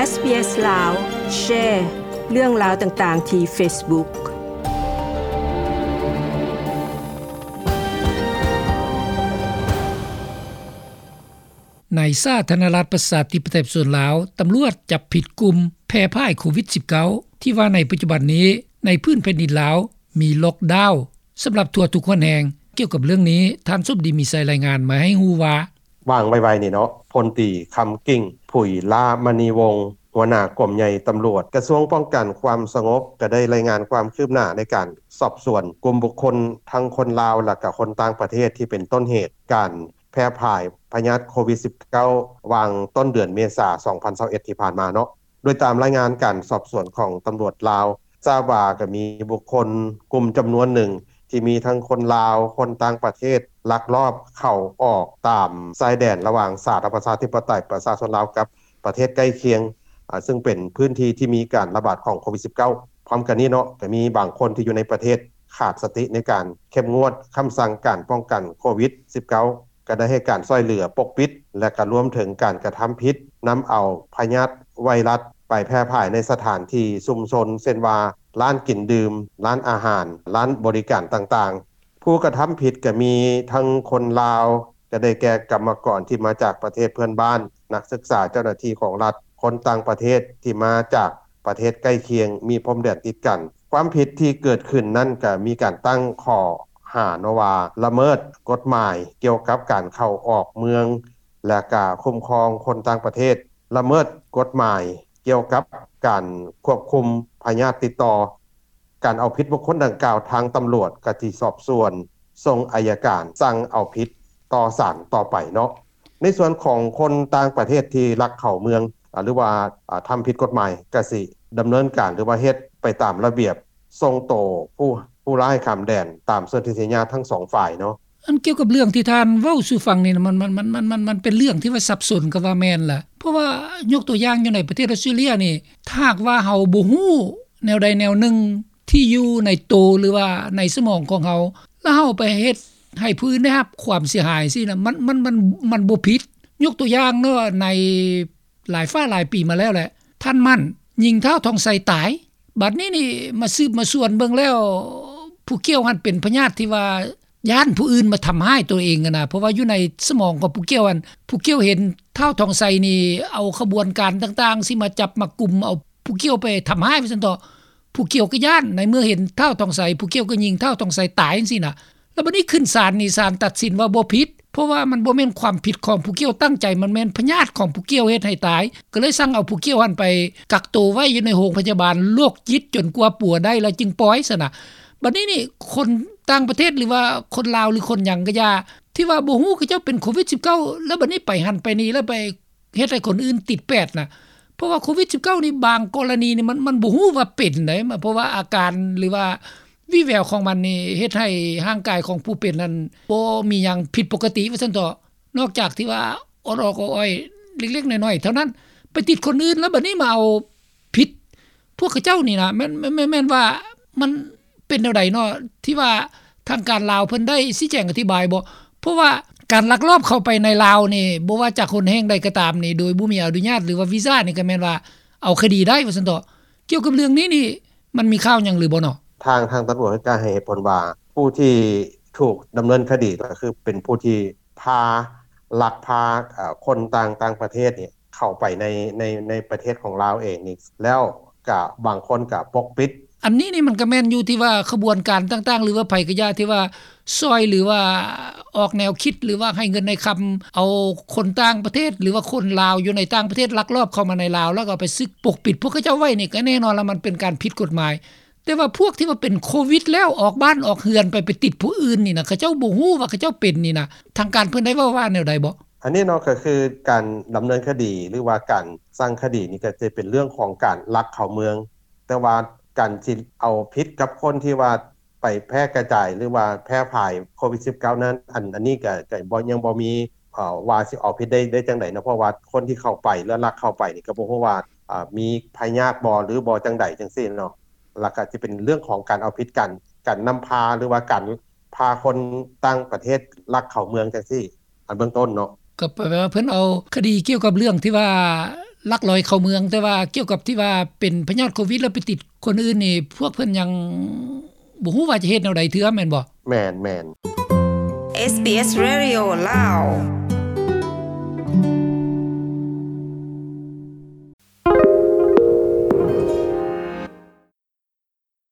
ເອສບີເອສ ລາວ ແຊເລື່ອງລາວຕ່າງໆທີ່ເຟສບຸກ. ໃນສາທາລະນະລັດ ປະຊາທິປະໄຕ ປະຊາຊົນລາວ, ຕຳຫຼວດຈັບຜິດກຸ່ມແຜ່ຜາຍໂຄວິດສິບເກົ້າ ທີ່ວ່າໃນປັດຈຸບັນນີ້ ໃນພື້ນແຜ່ນດິນລາວ ມີລັອກດາວສຳລັບທົ່ວທຸກຫົນແຫ່ງ. ກ່ຽວກັບເລື່ອງນີ້, ທ່ານສົມດີ ມີໄຊ ລາຍງານມາໃຫ້ຮູ້ວ່າ, ຫວ່າງໄວໆນີ້ເນາະ, ພົນຕີ ຄຳກິ່ງ ຜຸຍລາມະນີວົງ ຫົວໜ້າກົມໃຫຍ່ຕຳຫຼວດ ກະຊວງປ້ອງກັນຄວາມສະຫງົບ ກະໄດ້ລາຍງານຄວາມຄືບໜ້າໃນການສອບສວນກຸ່ມບຸກຄົນ ທັງຄົນລາວ ແລະກະຄົນຕ່າງປະເທດ ທີ່ເປັນຕົ້ນເຫດການແຜ່ຜາຍພະຍາດໂຄວິດສິບເກົ້າ ຫວ່າງຕົ້ນເດືອນເມສາ ສອງພັນຊາວເອັດ ທີ່ຜ່ານມາເນາະ. ໂດຍຕາມລາຍງານການສອບສວນຂອງຕຳຫຼວດລາວ ຊາບວ່າກະມີບຸກຄົນກຸ່ມຈຳນວນໜຶ່ງ ທີ່ມີທັງຄົນລາວ, ຄົນຕ່າງປະເທດ ລັກລອບເຂົ້າອອກຕາມຊາຍແດນລະຫວ່າງສາທາລະນະລັດ ປະຊາທິປະໄຕ ປະຊາຊົນລາວ ກັບປະເທດໃກ້ຄຽງ ອາ ຊຶ່ງເປັນພື້ນທີ່ທີ່ມີການລະບາດຂອງໂຄວິດສິບເກົ້າ. ພ້ອມກັນນີ້ເນາະ, ກະມີບາງຄົນທີ່ຢູ່ໃນປະເທດຂາດສະຕິໃນການເຂັ້ມງວດຄຳສັ່ງການປ້ອງກັນໂຄວິດສິບເກົ້າ ກະໄດ້ໃຫ້ການຊ່ວຍເຫຼືອປົກປິດ ແລະກະລວມເຖິງການກະທຳຜິດນຳເອົາພະຍາດໄວຣັສໄປແຜ່ຜາຍໃນສະຖານທີ່ຊຸມຊົນ ເຊັ່ນວ່າ ຮ້ານກິນດື່ມ, ຮ້ານອາຫານ, ຮ້ານບໍລິການຕ່າງໆ. ຜູ້ກະທຳຜິດກະມີທັງຄົນລາວ ກະໄດ້ແກ່ກຳມະກອນທີ່ມາຈາກປະເທດເພື່ອນບ້ານ, ນັກສຶກສາ, ເຈົ້າໜ້າທີ່ຂອງລັດ, ຄົນຕ່າງປະເທດທີ່ມາຈາກປະເທດໃກ້ຄຽງ ມີພົມແດນຕິດກັນ. ຄວາມຜິດທີ່ເກີດຂຶ້ນນັ້ນກະມີການຕັ້ງຂໍ້ຫາເນາະວ່າ ລະເມີດກົດໝາຍກ່ຽວກັບການເຂົ້າອອກເມືອງ ແລະກະຄຸ້ມຄອງຄົນຕ່າງປະເທດ, ລະເມີດກົດໝາຍກ່ຽວກັບການຄວບຄຸມພະຍາດຕິດຕໍ່. ການເອົາຜິດບຸກຄົນດັ່ງກ່າວ ທາງຕຳຫຼວດກະຊິສອບສວນ ສົ່ງໄອຍະການສັ່ງເອົາຜິດຕໍ່ສານຕໍ່ໄປເນາະ. ໃນສ່ວນຂອງຄົນຕ່າງປະເທດທີ່ລັກເຂົ້າເມືອງ ອາ ຫຼືວ່າ ອາ ທຳຜິດກົດໝາຍ ກະຊິດຳເນີນການ ຫຼືວ່າເຮັດໄປຕາມລະບຽບ ສົ່ງໂຕຜູ້ ຜູ້ຮ້າຍຂ້າມແດນ ຕາມສົນທິສັນຍາທັງສອງຝ່າຍເນາະ. ອັນກ່ຽວກັບເລື່ອງທີ່ທ່ານເວົ້າສູ່ຟັງນີ້ນະ ມັນ ມັນ ມັນ ມັນ ມັນ ມັນເປັນເລື່ອງທີ່ວ່າສັບສົນກໍວ່າແມ່ນລະ. ເພາະວ່າຍົກຕົວຢ່າງຢູ່ໃນປະເທດອອສເຕຣເລັຍນີ້ ຖ້າຫາກວ່າເຮົາບໍ່ຮູ້ແນວໃດແນວໜຶ່ງທີ່ຢູ່ໃນໂຕ ຫຼືວ່າໃນສະໝອງຂອງເຮົາ ແລ້ວເຮົາໄປເຮັດໃຫ້ຜູ້ອື່ນໄດ້ຮັບຄວາມເສຍຫາຍຊີ້ນະ ມັນ ມັນ ມັນ ມັນບໍ່ຜິດ. ຍົກຕົວຢ່າງເນາະ ໃນຫຼາຍຟ້າຫຼາຍປີມາແລ້ວແຫຼະ ທ່ານໝັ້ນຍິງທ້າວທອງໄຊຕາຍ. ບັດນີ້ນີ້ມາສືບມາສວນເບິ່ງແລ້ວ ຜູ້ກ່ຽວຫັ້ນເປັນພະຍາດທີ່ວ່າຢ້ານຜູ້ອື່ນມາທຳຮ້າຍຕົວເອງຫັ້ນນະ ເພາະວ່າຢູ່ໃນສະໝອງຂອງຜູ້ກ່ຽວຫັ້ນ ຜູ້ກ່ຽວເຫັນທ້າວທອງໄຊນີ້ເອົາຂະບວນການຕ່າງໆຊິມາຈັບມາກຸມເອົາຜູ້ກ່ຽວໄປທຳຮ້າຍວ່າຊັ້ນເຖາະ. ຜູ້ກ່ຽວກໍຢ້ານ ໃນເມື່ອເຫັນທ້າວທອງໄຊ ຜູ້ກ່ຽວກໍຍິງທ້າວທອງໄຊຕາຍຈັ່ງຊີ້ນະ. ແລ້ວບັດນີ້ຂຶ້ນສານນີ້ ສານຕັດສິນວ່າບໍ່ຜິດ ເພາະວ່າມັນບໍ່ແມ່ນຄວາມຜິດຂອງຜູ້ກ່ຽວຕັ້ງໃຈ ມັນແມ່ນພະຍາດຂອງຜູ້ກ່ຽວເຮັດໃຫ້ຕາຍ ກໍເລີຍສັ່ງເອົາຜູ້ກ່ຽວຫັ້ນໄປກັກໂຕໄວ້ຢູ່ໃນໂຮງພະຍາບານໂລກຈິດ ຈົນກວ່າປົວໄດ້ແລ້ວຈຶ່ງປ່ອຍຊັ້ນນະ. ບັດນີ້ນີ້ ຄົນຕ່າງປະເທດ ຫຼືວ່າຄົນລາວ ຫຼືຄົນຫຍັງກໍຢ່າ ທີ່ວ່າບໍ່ຮູ້ເຂົາເຈົ້າເປັນໂຄວິດສິບເກົ້າ ແລ້ວບັດນີ້ໄປຫັ້ນໄປນີ້ ແລ້ວໄປເຮັດໃຫ້ຄົນອື່ນຕິດແປດນະ. ເພາະວ່າໂຄວິດສິບເກົ້ານີ້ ບາງກໍລະນີນີ້ ມັນ ມັນບໍ່ຮູ້ວ່າເປັນໃດ ເພາະວ່າອາການ ຫຼືວ່າ ວີແວວຂອງມັນນີ້ເຮັດໃຫ້ຮ່າງກາຍຂອງຜູ້ເປັນນັ້ນບໍ່ມີຫຍັງຜິດປົກກະຕິວ່າຊັ້ນເຖາະ ນອກຈາກທີ່ວ່າອອດໆອ້ອຍໆ ເລັກໆນ້ອຍໆເທົ່ານັ້ນ ໄປຕິດຄົນອື່ນ ແລ້ວບັດນີ້ມາເອົາຜິດພວກເຂົາເຈົ້ານີ້ນະ ແມ່ນ ແມ່ນ ແມ່ນ ແມ່ນວ່າມັນເປັນແນວໃດເນາະ ທີ່ວ່າທາງການລາວເພິ່ນໄດ້ຊີ້ແຈງອະທິບາຍບໍ່? ເພາະວ່າການລັກລອບເຂົ້າໄປໃນລາວນີ້ ບໍ່ວ່າຈາກຫົນແຫ່ງໃດກໍຕາມນີ້ ໂດຍບໍ່ມີອະນຸຍາດ ຫຼືວ່າວີຊານີ້ ກໍແມ່ນວ່າເອົາຄະດີໄດ້ວ່າຊັ້ນເຖາະ. ກ່ຽວກັບເລື່ອງນີ້ນີ້ ມັນມີຂ່າວຫຍັງຫຼືບໍ່ເນາະ? ທາງ ທາງຕຳຫຼວດກໍໃຫ້ເຫດຜົນວ່າ ຜູ້ທີ່ຖືກດຳເນີນຄະດີກໍຄືເປັນຜູ້ທີ່ພາ ລັກພາ ເອີ ຄົນຕ່າງ ຕ່າງປະເທດນີ້ເຂົ້າໄປໃນ ໃນ ໃນປະເທດຂອງລາວເອງນີ້ ແລ້ວກະບາງຄົນກະປົກປິດ. ອັນນີ້ນີ້ມັນກະແມ່ນຢູ່ທີ່ວ່າຂະບວນການຕ່າງໆ ຫຼືວ່າໃຜກະຢ່າທີ່ວ່າຊ່ອຍ ຫຼືວ່າອອກແນວຄິດ ຫຼືວ່າໃຫ້ເງິນໃຫ້ຄຳ ເອົາຄົນຕ່າງປະເທດ ຫຼືວ່າຄົນລາວຢູ່ໃນຕ່າງປະເທດລັກລອບເຂົ້າມາໃນລາວ ແລ້ວກໍເອົາໄປສຶກປົກປິດພວກເຂົາເຈົ້າໄວ້ນີ້ ກໍແນ່ນອນລະມັນເປັນການຜິດກົດໝາຍ. ແຕ່ວ່າພວກທີ່ວ່າເປັນໂຄວິດແລ້ວອອກບ້ານອອກເຮືອນໄປ ໄປຕິດຜູ້ອື່ນນີ້ນະ ເຂົາເຈົ້າບໍ່ຮູ້ວ່າເຂົາເຈົ້າເປັນນີ້ນະ ທາງການເພິ່ນໄດ້ເວົ້າວ່າແນວໃດບໍ່? ອັນນີ້ເນາະ ກໍຄືການດຳເນີນຄະດີ ຫຼືວ່າການສັ່ງຄະດີນີ້ ກໍຈະເປັນເລື່ອງຂອງການລັກເຂົ້າເມືອງ ແຕ່ວ່າການຊິເອົາຜິດກັບຄົນທີ່ວ່າໄປແຜ່ກະຈາຍ ຫຼືວ່າແຜ່ຜາຍໂຄວິດສິບເກົ້ານັ້ນ ອັນ ອັນນີ້ກໍ ກໍບໍ່ ຍັງບໍ່ມີ ເອີ ວ່າຊິເອົາຜິດໄດ້ ໄດ້ຈັ່ງໃດເນາະ ເພາະວ່າຄົນທີ່ເຂົ້າໄປ ຫຼືລັກເຂົ້າໄປນີ້ ກໍບໍ່ຮູ້ວ່າ ເອີ ມີພະຍາດບໍ່ ຫຼືບໍ່ຈັ່ງໃດຈັ່ງຊີ້ເນາະ. ແລ້ວກໍຊິເປັນເລື່ອງຂອງການເອົາຜິດ ການ ການນຳພາ ຫຼືວ່າການພາຄົນຕ່າງປະເທດລັກເຂົ້າເມືອງຈັ່ງຊີ້ ອັນເບື້ອງຕົ້ນເນາະ. ກໍແປວ່າເພິ່ນເອົາຄະດີກ່ຽວກັບເລື່ອງທີ່ວ່າ ລັກລອຍເຂົ້າເມືອງ ແຕ່ວ່າກ່ຽວກັບທີ່ວ່າເປັນພະຍາດໂຄວິດແລ້ວໄປຕິດຄົນອື່ນນີ້ ພວກເພິ່ນຍັງບໍ່ຮູ້ວ່າຈະເຮັດແນວໃດເທື່ອ ແມ່ນບໍ່? ແມ່ນ ແມ່ນ SBS Radio ລາວ